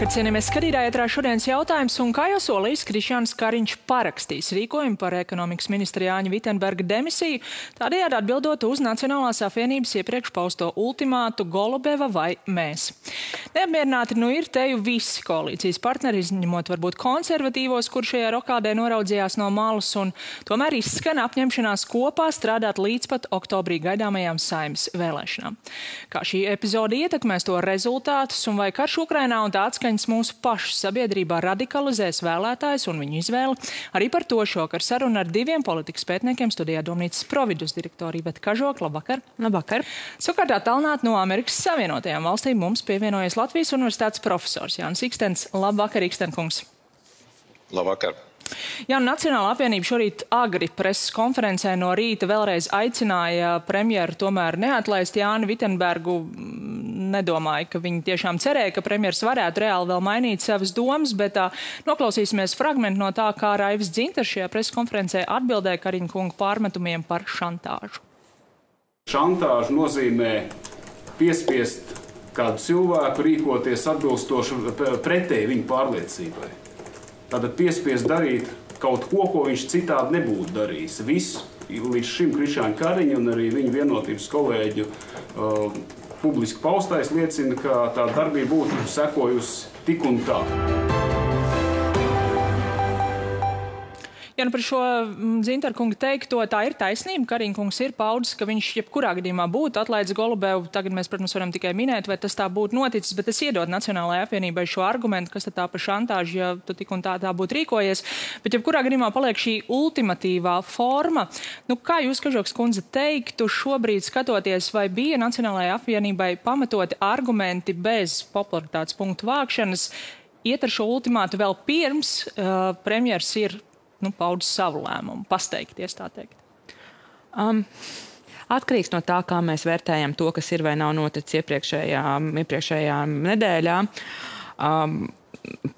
Labvakar, cienījamies skatītāji, ētrā šodienas jautājums, un kā jau solījis, Krišjāns Kariņš parakstīs rīkojumu par ekonomikas ministra Jāņa Vitenberga demisiju, tādējādi atbildot uz Nacionālās apvienības iepriekš pausto ultimātu Golubeva vai mēs. Neapmierināti ir teju visi koalīcijas partneri, izņemot varbūt konservatīvos, kur šajā rokādē noraudzījās no malas, un tomēr izskan apņemšanās kopā strādāt līdz pat oktobrī gaidāmajām Saeimas vēlēšanām. Kā šī epizode ietekmēs to rezultātus un vai karš Ukrainā un tā atskaņas mūsu pašu sabiedrībā radikalizēs vēlētājus un viņu izvēli. Arī par to šokar saruna ar diviem politikas pētniekiem studijā Domnīcas Providus direktori Iveta Kažoka. Labvakar. Labvakar. Savukārt attālināt no Amerikas Savienotajām valstīm mums pievienojas Latvijas Universitātes profesors Jānis Ikstens. Labvakar, Ikstenkungs. Labvakar. Jā, Nacionālā apvienība šorīt agri preses konferencē no rīta vēlreiz aicināja premjeru tomēr neatlaist Jāni Vitenbergu. Nedomāju, ka viņi tiešām cerēja, ka premjers varētu reāli vēl mainīt savas domas, bet noklausīsimies fragmentu no tā, kā Raivis Dzintars šajā preses konferencē atbildēja Kariņa kunga pārmetumiem par šantāžu. Šantāžu nozīmē piespiest kādu cilvēku rīkoties atbilstoši pretēji viņa pārliecībai. Tātad piespiest darīt kaut ko, ko viņš citādi nebūtu darījis. Viss līdz šim Krišjāņa Kariņa un arī viņa vienotības kolēģu publiski paustais liecina, ka tā darbība būtu sekojusi tik un tā. Ja par šo Dzintara kunga teikto, tā ir taisnība. Kariņa kungs ir paudis, ka viņš jebkurā gadījumā būtu atlaidis Golubevu. Tagad mēs, protams, varam tikai minēt, vai tas tā būtu noticis, bet es iedodu Nacionālajai apvienībai šo argumentu, kas tad tā par šantāžu, ja tu tik un tā būtu rīkojies. Bet jebkurā gadījumā paliek šī ultimatīvā forma. Kā jūs, Kažoks kundze, teiktu šobrīd skatoties, vai bija Nacionālajai apvienībai pamatoti argumenti bez popularitātes punktu vākšanas, iet ar šo ultimātu vēl pirms premjers ir paudis savu lēmumu, pasteikties, tā teikt? Atkarīgs no tā, kā mēs vērtējam to, kas ir vai nav noticis iepriekšējā nedēļā.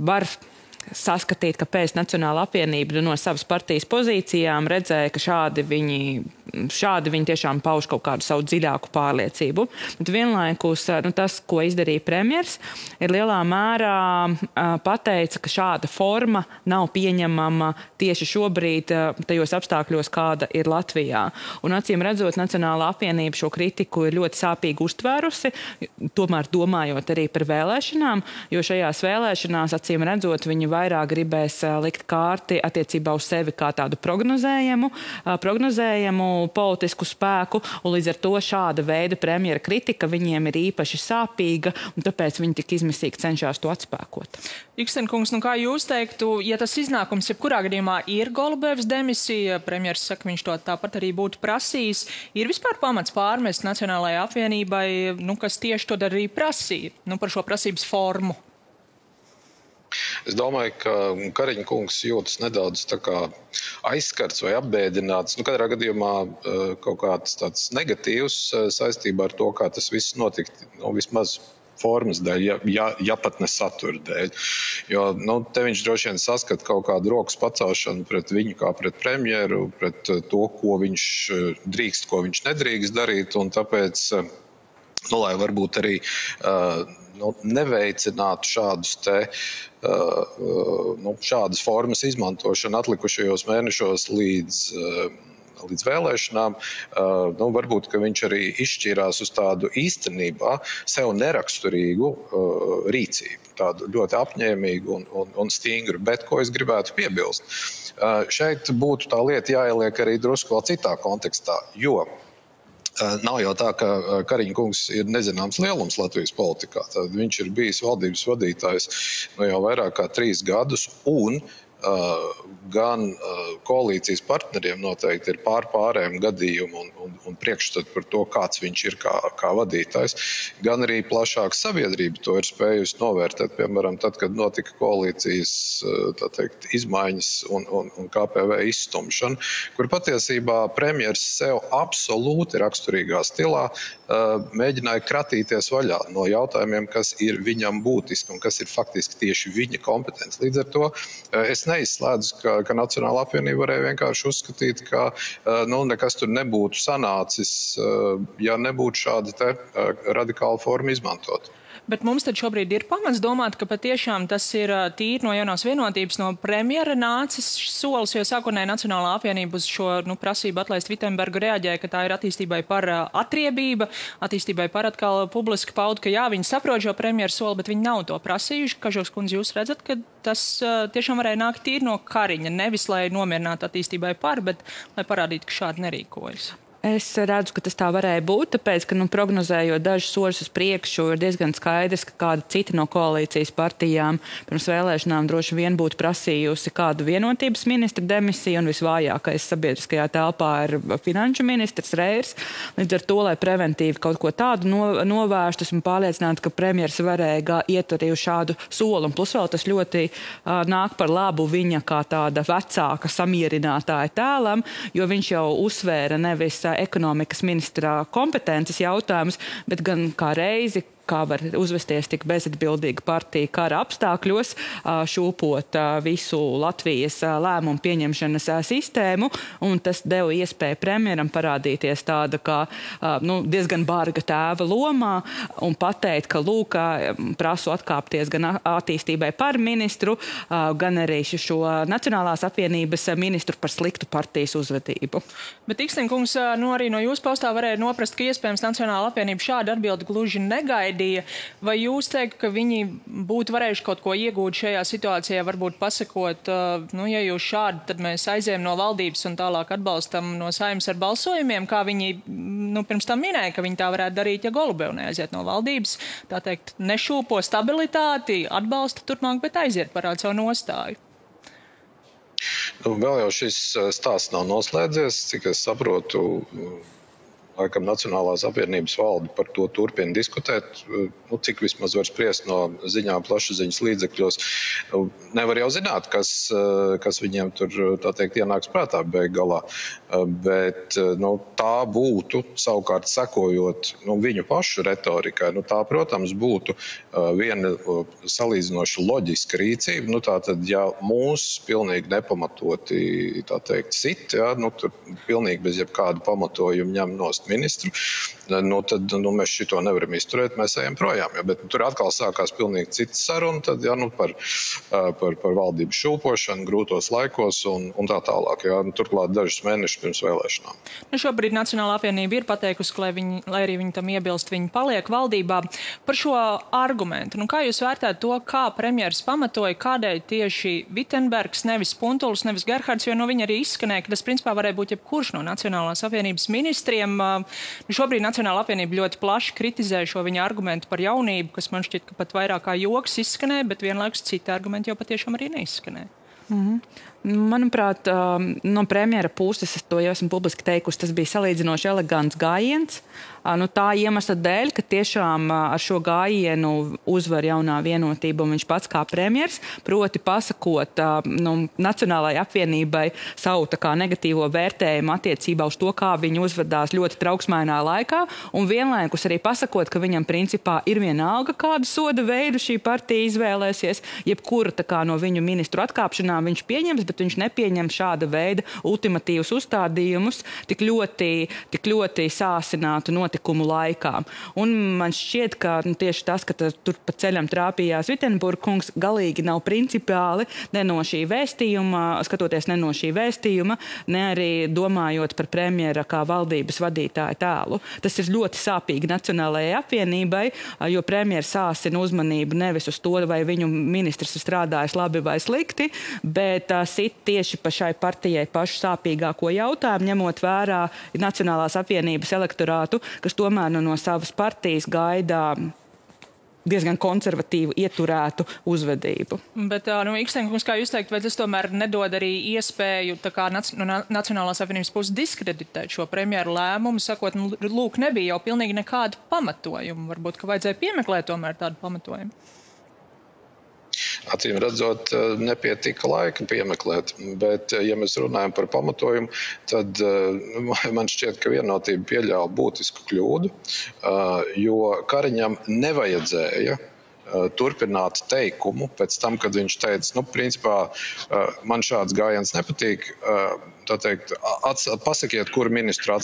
Var saskatīt, ka pēc Nacionāla apvienība no savas partijas pozīcijām redzēja, ka šādi viņi tiešām pauž kaut kādu savu dziļāku pārliecību. Bet vienlaikus tas, ko izdarīja premjers, ir lielā mērā pateica, ka šāda forma nav pieņemama tieši šobrīd tajos apstākļos, kāda ir Latvijā. Un acīm redzot, Nacionāla apvienība šo kritiku ir ļoti sāpīgi uztvērusi, tomēr domājot arī par vēlēšanām, jo šajās vēlēšanās, acīm redzot, viņi vairāk gribēs likt kārti attiecībā uz sevi kā tādu prognozējumu politisku spēku, un līdz ar to šāda veida premjera kritika viņiem ir īpaši sāpīga, un tāpēc viņi tik izmisīgi cenšas to atspēkot. Ikstenkungs, kā jūs teiktu, ja tas iznākums jebkurā gadījumā ir Golubevas demisija, premjers saka, viņš to tāpat arī būtu prasījis, ir vispār pamats pārmest Nacionālajai apvienībai, kas tieši to arī prasīja, par šo prasības formu? Es domāju, ka Kariņa kungs jūtas nedaudz tā kā aizskarts vai apbēdināts. Katrā gadījumā kaut kāds tāds negatīvs saistībā ar to, kā tas viss notika, vismaz formas dēļ, ja pat ne satura dēļ. Jo te viņš droši vien saskat kaut kādu rokas pacelšanu pret viņu kā pret premjeru, pret to, ko viņš drīkst, ko viņš nedrīkst darīt, un tāpēc, lai varbūt arī neveicinātu šādas formas izmantošanu atlikušajos mēnešos līdz vēlēšanām, varbūt, ka viņš arī izšķīrās uz tādu īstenībā sev neraksturīgu rīcību, tādu ļoti apņēmīgu un stingru, bet ko es gribētu piebilst. Šeit būtu tā lieta jāieliek arī drusku vēl citā kontekstā, jo nav jau tā, ka Kariņa kungs ir nezināms lielums Latvijas politikā. Tad viņš ir bijis valdības vadītājs jau vairāk kā 3 gadus, un gan koalīcijas partneriem noteikti ir pārējiem gadījumi un priekšstati par to, kāds viņš ir kā vadītājs, gan arī plašāka sabiedrība to ir spējusi novērtēt. Piemēram, tad, kad notika koalīcijas izmaiņas un KPV izstumšana, kur patiesībā premjers sev absolūti raksturīgā stilā mēģināja kratīties vaļā no jautājumiem, kas ir viņam būtiski un kas ir faktiski tieši viņa kompetence. Līdz ar to es neizslēdzu, ka Nacionāla apvienība varēja vienkārši uzskatīt, ka nekas tur nebūtu sanācis, ja nebūtu šāda radikāla forma izmantot. Bet mums tad šobrīd ir pamats domāt, ka patiešām tas ir tīri no jaunās vienotības, no premjera nācis solis, jo sākotnēji Nacionālā apvienība uz šo prasību atlaist Vitenbergu reaģēja, ka tā ir attīstībai par atriebība, attīstībai par atkal publiski paudu, ka jā, viņi saprot šo premjeru soli, bet viņi nav to prasījuši. Kažoks kundze, jūs redzat, ka tas tiešām varēja nākt tīri no Kariņa, nevis lai nomierinātu attīstībai par, bet lai parādītu, ka šādi nerīkojas. Es redzu, ka tas tā varēja būt, tāpēc, ka prognozējot dažus soļus uz priekšu, ir diezgan skaidrs, ka kāda cita no koalīcijas partijām pirms vēlēšanām droši vien būtu prasījusi kādu vienotības ministra demisiju, un visvājākais sabiedriskajā telpā ir finanšu ministrs Reirs. Līdz ar to, lai preventīvi kaut ko tādu novērstu, esmu pārliecināta, ka premjers varēja iet arī uz šādu soli, un plus vēl tas ļoti nāk par labu viņa kā tāda vecāka samierinātāja tēlam, jo viņš jau uzsvēra nevis ekonomikas ministrā kompetences jautājumus, bet gan kā reizi, kā var uzvesties tik bezatbildīga partija kara apstākļos, šūpot visu Latvijas lēmumu pieņemšanas sistēmu, un tas deva iespēju premjeram parādīties tāda kā diezgan barga tēva lomā un pateikt, ka lūk, prasu atkāpties gan attīstībai par ministru, gan arī šo Nacionālās apvienības ministru par sliktu partijas uzvedību. Bet Ikstenkungs, arī no jūsu paustā varēja noprast, ka iespējams Nacionālā apvienība šādu atbildi gluži negaida. Vai jūs teikt, ka viņi būtu varējuši kaut ko iegūt šajā situācijā, varbūt pasakot, ja jūs šādi, tad mēs aizējam no valdības un tālāk atbalstam no Saeimas ar balsojumiem, kā viņi pirms tam minēja, ka viņi tā varētu darīt, ja Golubeva neaiziet no valdības, tā teikt, nešūpo stabilitāti, atbalsta turpmāk, bet aiziet parāda savu nostāju. Vēl jau šis stāsts nav noslēdzies, cik es saprotu. Laikam Nacionālās apvienības valde par to turpina diskutēt, cik vismaz var spriest no ziņām plašsaziņas līdzekļos. Nevar jau zināt, kas viņiem tur, tā teikt, ienāks prātā beig galā. Bet tā būtu, savukārt sekojot viņu pašu retorikai, tā, protams, būtu viena salīdzinoši loģiska rīcība. Tātad, ja mūs pilnīgi nepamatoti, tā teikt, sit, tur pilnīgi bez jebkāda pamatojuma ņem nost ministru, tad mēs šito nevaram izturēt, mēs ejam projām. Bet tur atkal sākās pilnīgi cits saruna, tad par valdības šūpošanu grūtos laikos un tā tālāk. Turklāt dažus mēnešus pirms vēlēšanām. Šobrīd Nacionālā apvienība ir pateikusi, ka, lai arī viņi tam iebilst, viņi paliek valdībā. Par šo argumentu, kā jūs vērtētu to, kā premjeras pamatoja, kādēļ tieši Vitenbergs, nevis Puntulis, nevis Gerhards, jo viņa arī izskanēja, ka tas principā varēja būt jebkurš no Nacionālās apvienības ministriem. Šobrīd Nacionālā apvienība ļoti plaši kritizē šo viņa argumentu par jaunību, kas man šķiet, ka pat vairāk kā joks izskanēja, bet vienlaikus citi argumenti jau patiešām arī neizskanēja. Manuprāt, no premjera puses, es to jau esmu publiski teikusi, tas bija salīdzinoši elegants gājiens. Tā iemesla dēļ, ka tiešām ar šo gājienu uzvar jaunā vienotība un viņš pats kā premjers, proti pasakot Nacionālajai apvienībai savu tā kā negatīvo vērtējumu attiecībā uz to, kā viņi uzvedās ļoti trauksmainā laikā, un vienlaikus arī pasakot, ka viņam principā ir vienalga, kādu soda veidu šī partija izvēlēsies, jebkura tā kā no viņu ministru atkāpšanām viņš pieņems, bet viņš nepieņem šāda veida ultimatīvus uzstādījumus tik ļoti sāsinātu notikumu laikā. Un man šķiet, ka tieši tas, ka tur pa ceļam trāpījās Vitenburga kungs, galīgi nav principiāli ne no šī vēstījuma, skatoties ne no šī vēstījuma, ne arī domājot par premjera kā valdības vadītāja tēlu. Tas ir ļoti sāpīgi Nacionālajai apvienībai, jo premjers sāsina uzmanību nevis uz to, vai viņu ministrs ir strādājis labi vai slikti, bet sit tieši pa šai partijai pašu sāpīgāko jautājumu, ņemot vērā Nacionālās apvienības elektorātu, kas tomēr no savas partijas gaida diezgan konservatīvu, ieturētu uzvedību. Bet, Ikstenkungs, kā jūs teikt, vai tas tomēr nedod arī iespēju tā kā Nacionālās apvienības puses diskreditēt šo premjeru lēmumu, sakot, lūk, nebija jau pilnīgi nekāda pamatojuma. Varbūt, ka vajadzēja piemeklēt tomēr tādu pamatojumu. Acīm redzot, nepietika laika piemeklēt, bet, ja mēs runājam par pamatojumu, tad man šķiet, ka vienotība pieļāva būtisku kļūdu, jo Kariņam nevajadzēja turpināt teikumu pēc tam, kad viņš teica, principā man šāds gājiens nepatīk, tā teikt, pasakiet, kuru ministru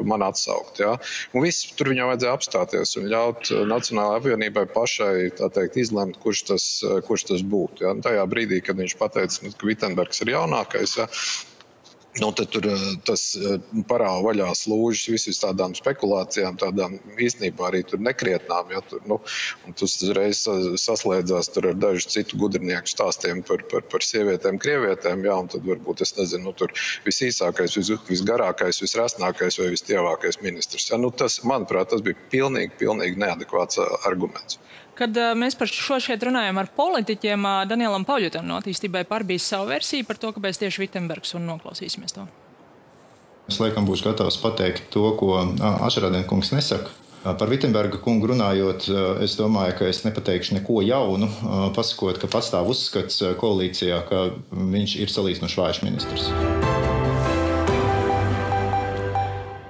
man atsaukt. Ja? Un viss tur viņam vajadzēja apstāties un ļaut Nacionālajai apvienībai pašai, tā teikt, izlemt, kurš tas būtu. Ja? Un tajā brīdī, kad viņš pateica, ka Vitsenbergs ir jaunākais, ja? Tad tur tas parāva vaļā slūžas visas tādām spekulācijām, tādām īstenībā arī tur nekrietnām. Ja, un tas uzreiz saslēdzās tur ar dažu citu gudrnieku stāstiem par sievietēm, krievietēm. Ja, un tad varbūt, es nezinu, tur visīsākais, visgarākais, visrasnākais vai vistievākais ministrs. Ja, tas, manuprāt, tas bija pilnīgi neadekvāts arguments. Kad mēs par šo šeit runājam ar politiķiem, Danielam Pauļutam no Attīstībai par bija savu versiju par to, kāpēc tieši Vitsenbergs, un noklausīsimies to. Es laikam būšu gatavs pateikt to, ko Ašarādien kungs nesaka. Par Vitsenberga kungu runājot, es domāju, ka es nepateikšu neko jaunu, pasakot, ka pastāv uzskats koalīcijā, ka viņš ir salīdzinoši vājš ministrs.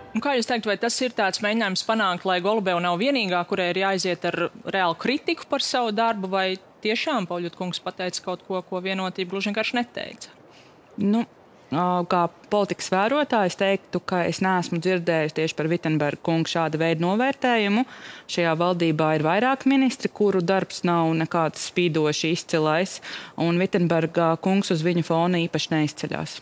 Un kā jūs teikt, vai tas ir tāds mēģinājums panākt, lai Golubeva nav vienīgā, kurai ir jāiziet ar reālu kritiku par savu darbu, vai tiešām Pauļut kungs pateica kaut ko, ko Vienotība gluži vienkārši neteica? Kā politikas vērotājs teiktu, ka es neesmu dzirdējusi tieši par Vitsenberga kungu šāda veida novērtējumu. Šajā valdībā ir vairāk ministri, kuru darbs nav nekāds spīdoši izcilais, un Vitsenberga kungs uz viņu fona īpaši neizceļās.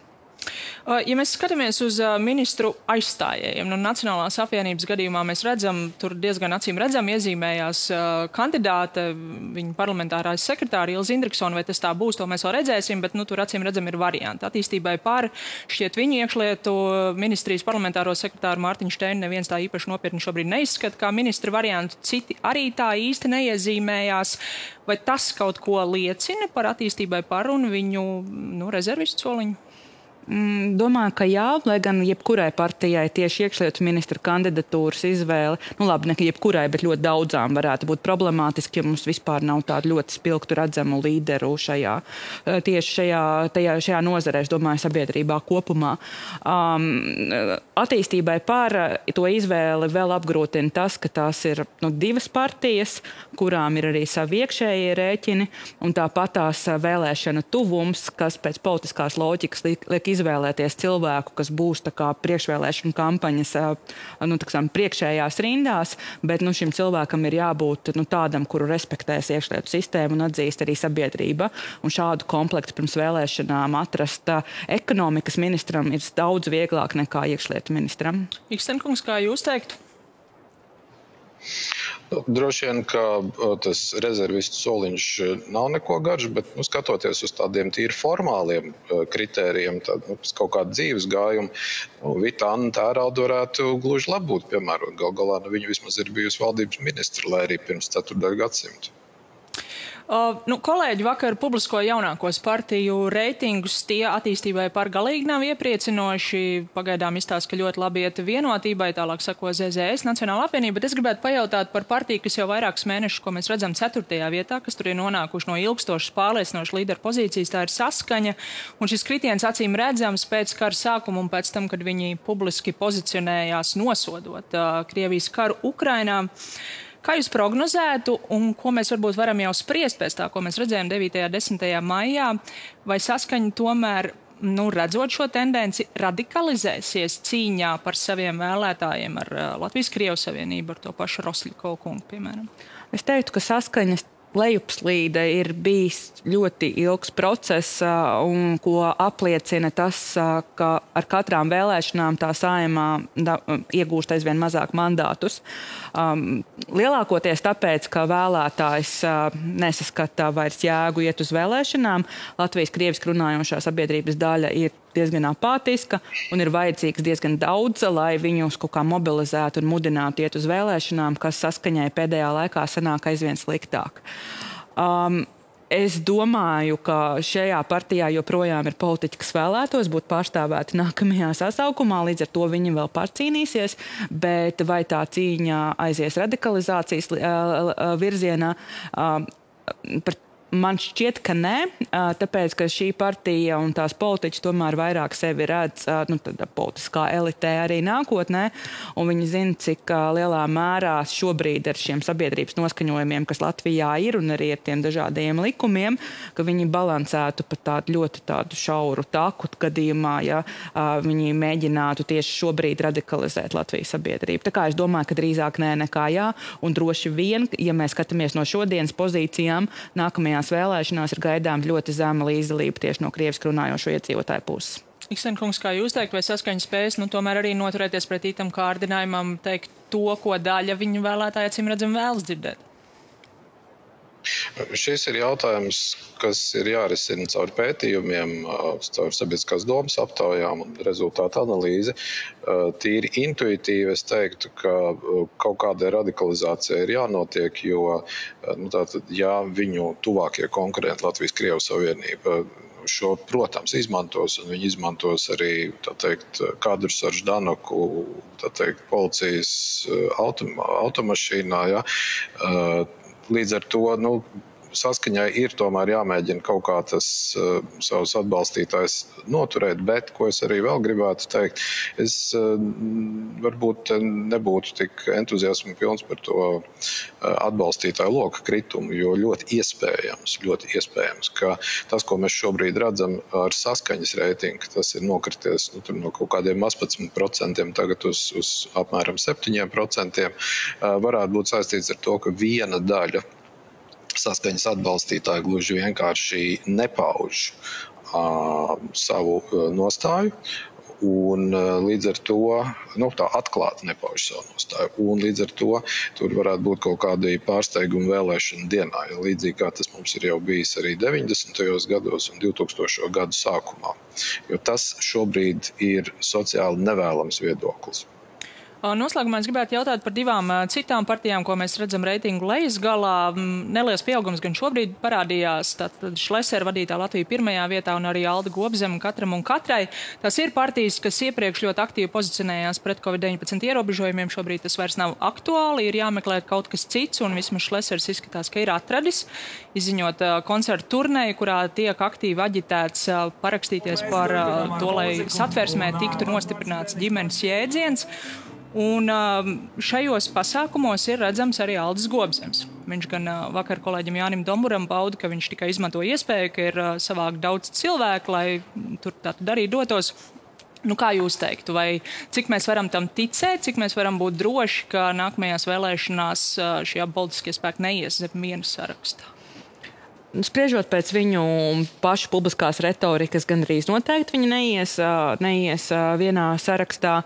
Ja mēs skatāmies uz ministru aizstājējiem, Nacionālās apvienības gadījumā mēs redzam, tur diezgan acīm redzam iezīmējās kandidāte, viņa parlamentārais sekretāri Ilze Indriksona, vai tas tā būs, to mēs vēl redzēsim, bet tur acīm redzam ir varianti. Attīstībai par šķiet viņu iekšlietu ministrijas parlamentāro sekretāru Mārtiņu Šteinu neviens tā īpaši nopietni šobrīd neizskata, kā ministra variantu, citi arī tā īsti neiezīmējās. Vai tas kaut ko liecina par Attīstībai par un viņu rezervistu soliņu? Domāju, ka jā, lai gan jebkurai partijai tieši iekšlietu ministra kandidatūras izvēle, ne jebkurai, bet ļoti daudzām varētu būt problemātiski, ja mums vispār nav tādu ļoti spilgtu redzamu līderu šajā nozarē, es domāju, sabiedrībā kopumā. Attīstībai par to izvēli vēl apgrūtina tas, ka tās ir divas partijas, kurām ir arī savi iekšējie rēķini, un tāpat tās vēlēšana tuvums, kas pēc politiskās loģikas liek izvēlēties cilvēku, kas būs priekšvēlēšana kampaņas priekšējās rindās, bet šim cilvēkam ir jābūt tādam, kuru respektēs iekšlietu sistēmu un atzīst arī sabiedrība. Un šādu komplektu pirms vēlēšanām atrast ekonomikas ministram ir daudz vieglāk nekā iekšlietu ministram. Ikstenkungs, kā jūs teiktu? Droši vien, ka tas rezervistu soliņš nav neko garš, bet skatoties uz tādiem tīri formāliem kritērijiem, tad kaut kādu dzīves gājumu, Vita Anna Tērauda varētu gluži labi būt, piemēram, galā viņa vismaz ir bijusi valdības ministra, lai arī pirms 4. gadsimta. Kolēģi vakar publisko jaunākos partiju reitingus, tie Attīstībai par galīgi nav iepriecinoši. Pagaidām izstāsta, ka ļoti labi iet Vienotībai, tālāk sako ZZS, Nacionāla apvienība, bet es gribētu pajautāt par partiju, kas jau vairākus mēnešus, ko mēs redzam 4. vietā, kas tur ir nonākuši no ilgstošas pārliecinošas līderu pozīcijas, tā ir Saskaņa, un šis kritiens acīm redzams pēc kara sākuma un pēc tam, kad viņi publiski pozicionējās nosodot Krievijas karu Ukrainā. Kā jūs prognozētu un ko mēs varbūt varam jau spriest pēc tā, ko mēs redzējām 9. un 10. maijā, vai Saskaņa tomēr, redzot šo tendenci, radikalizēsies cīņā par saviem vēlētājiem ar Latvijas-Krievu savienību, ar to pašu Rosļikovu kungu, piemēram? Es teiktu, ka Saskaņas lejupslīde ir bijis ļoti ilgs process, un ko apliecina tas, ka ar katrām vēlēšanām tā Saeimā iegūst aizvien mazāk mandātus. Lielākoties tāpēc, ka vēlētājs nesaskata vairs jēgu iet uz vēlēšanām, Latvijas-krieviski runājošā sabiedrības daļa ir diezgan apātiska un ir vajadzīgs diezgan daudz, lai viņus kaut kā mobilizētu un mudinātu iet uz vēlēšanām, kas Saskaņai pēdējā laikā sanāk aizvien sliktāk. Es domāju, ka šajā partijā joprojām ir politiķi, kas vēlētos būt pārstāvēti nākamajā sasaukumā, līdz ar to viņi vēl pārcīnīsies, bet vai tā cīņa aizies radikalizācijas virzienā, par Man šķiet, ka nē, tāpēc, ka šī partija un tās politiķi tomēr vairāk sevi redz politiskā elitē arī nākotnē, un viņi zina, cik lielā mērā šobrīd ar šiem sabiedrības noskaņojumiem, kas Latvijā ir, un arī ar tiem dažādiem likumiem, ka viņi balansētu pa tādu ļoti tādu šauru taku gadījumā, ja viņi mēģinātu tieši šobrīd radikalizēt Latvijas sabiedrību. Tā kā es domāju, ka drīzāk nē nekā jā, un droši vien, ja mēs skatāmies no šodienas pozīcijām, nākamajās vēlēšanās ir gaidām ļoti zema līdzdalība tieši no krieviski runājošo iedzīvotāju puses. Ikstenkungs, kā jūs teikt, vai saskaņas spējas, tomēr arī noturēties pret itam kārdinājumam teikt to, ko daļa viņu vēlētāji acīm redzam vēlas dzirdēt? Šis ir jautājums, kas ir jārisina caur pētījumiem, caur sabiedriskās domas aptaujām un rezultātu analīzi. Tīri intuitīvi es teiktu, ka kaut kāda radikalizācija ir jānotiek, jo ja viņu tuvākie konkurenti Latvijas-Krievu Savienība šo, protams, izmantos, un viņi izmantos arī, kadrus ar Ždanoku, policijas automašīnā, ja. Līdz ar to, saskaņai ir tomēr jāmēģina kaut kā tas savus atbalstītājs noturēt, bet, ko es arī vēl gribētu teikt, es varbūt nebūtu tik entuziasmu pilns par to atbalstītāju loka kritumu, jo ļoti iespējams, ka tas, ko mēs šobrīd redzam ar saskaņas reitingu, tas ir nokrities no kaut kādiem 18% tagad uz apmēram 7%, varētu būt saistīts ar to, ka viena daļa saskaņas atbalstītāji gluži vienkārši nepauž savu nostāju, un līdz ar to, tā atklāti nepauž savu nostāju, un līdz ar to tur varētu būt kaut kādi pārsteigumi vēlēšanu dienā, līdzīgi kā tas mums ir jau bijis arī 90. gados un 2000. gadu sākumā, jo tas šobrīd ir sociāli nevēlams viedoklis. Noslēgumā es gribētu jautāt par divām citām partijām, ko mēs redzam reitingu lejas galā. Neliels pieaugums gan šobrīd parādījās. Tātad Šlesera vadītā Latvija pirmajā vietā un arī Alda Gobzema katram un katrai. Tas ir partijas, kas iepriekš ļoti aktīvi pozicionējās pret Covid-19 ierobežojumiem. Šobrīd tas vairs nav aktuāli, ir jāmeklē kaut kas cits, un vismaz Šlesers izskatās, ka ir atradis, izziņot koncertu turneju, kurā tiek aktīvi aģitēts parakstīties par to, lai satversmē tiktu nostiprināts ģimenes jēdziens. Un šajos pasākumos ir redzams arī Aldis Gobzems. Viņš gan vakar kolēģim Jānim Domburam pauda, ka viņš tikai izmanto iespēju, ka ir savākt daudz cilvēku, lai tur tātad arī dotos. Kā jūs teiktu, vai cik mēs varam tam ticēt, cik mēs varam būt droši, ka nākamajās vēlēšanās šie politiskie spēki neies zem viena sarakstā? Spriežot pēc viņu pašu publiskās retorikas, gan arī noteikti viņi neies vienā sarakstā,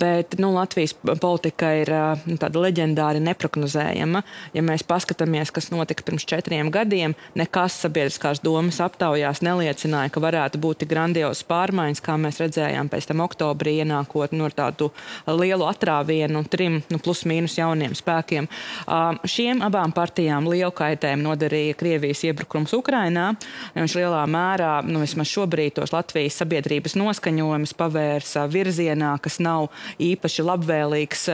bet Latvijas politika ir tāda leģendāri neprognozējama. Ja mēs paskatāmies, kas notika pirms 4 gadiem, nekas sabiedriskās domas aptaujās neliecināja, ka varētu būt tik grandiozas pārmaiņas, kā mēs redzējām pēc tam oktobrī ienākot ar tādu lielu atrāvienu 3 plus mīnus jauniem spēkiem. Šiem abām partijām lielu kaitējumu nodarīja Krievijas iebrukums Ukrainā. Viņš lielā mērā, vismaz šobrīd, tos Latvijas sabiedrības noskaņojumus pavērsa virzienā, kas nav īpaši labvēlīgs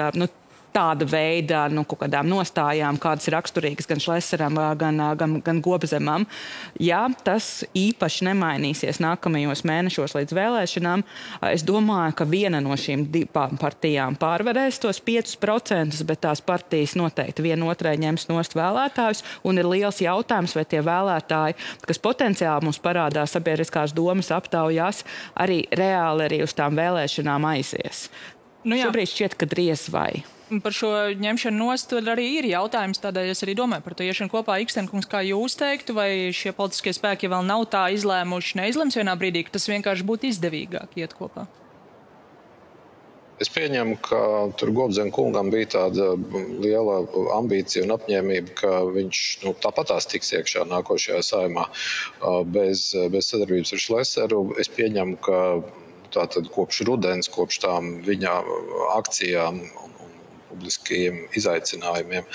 tāda veida kaut kādām nostājām, kādas ir raksturīgas gan Šleseram, gan Gobzemam. Ja tas īpaši nemainīsies nākamajos mēnešos līdz vēlēšanām, es domāju, ka viena no šīm divām partijām pārvarēs tos 5%, bet tās partijas noteikti vienotrai ņems nost vēlētājus, un ir liels jautājums, vai tie vēlētāji, kas potenciāli mums parādās sabiedriskās domas aptaujās, arī reāli arī uz tām vēlēšanām aizies. Šobrīd šķiet, ka driez vai. Par šo ņemšanu nost arī ir jautājums, tādēļ es arī domāju par to iešanu kopā. Ikstenkungs, kā jūs teiktu, vai šie politiskie spēki vēl nav tā izlēmuši, neizlems vienā brīdī, ka tas vienkārši būtu izdevīgāk iet kopā? Es pieņemu, ka tur Gobzem kungam bija tāda liela ambīcija un apņēmība, ka viņš tāpatās tiks iekšā nākošajā saimā bez sadarbības ar Šleseru. Es pieņemu, ka tātad kopš rudens, kopš tām viņa akcijām un publiskajiem izaicinājumiem,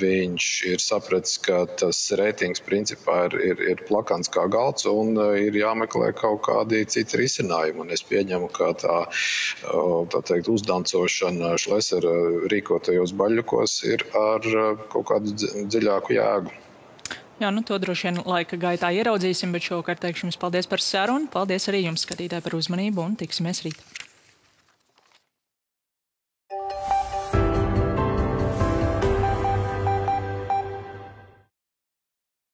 viņš ir sapratis, ka tas reitings principā ir plakans kā galds un ir jāmeklē kaut kādi citi risinājumi. Un es pieņemu, ka tā teikt, uzdancošana Šlesera rīkotajos baļļukos ir ar kaut kādu dziļāku jēgu. Jā, to droši vien laika gaitā ieraudzīsim, bet šovakar teikšu jums paldies par sarunu. Paldies arī jums, skatītāji, par uzmanību un tiksimies rīt.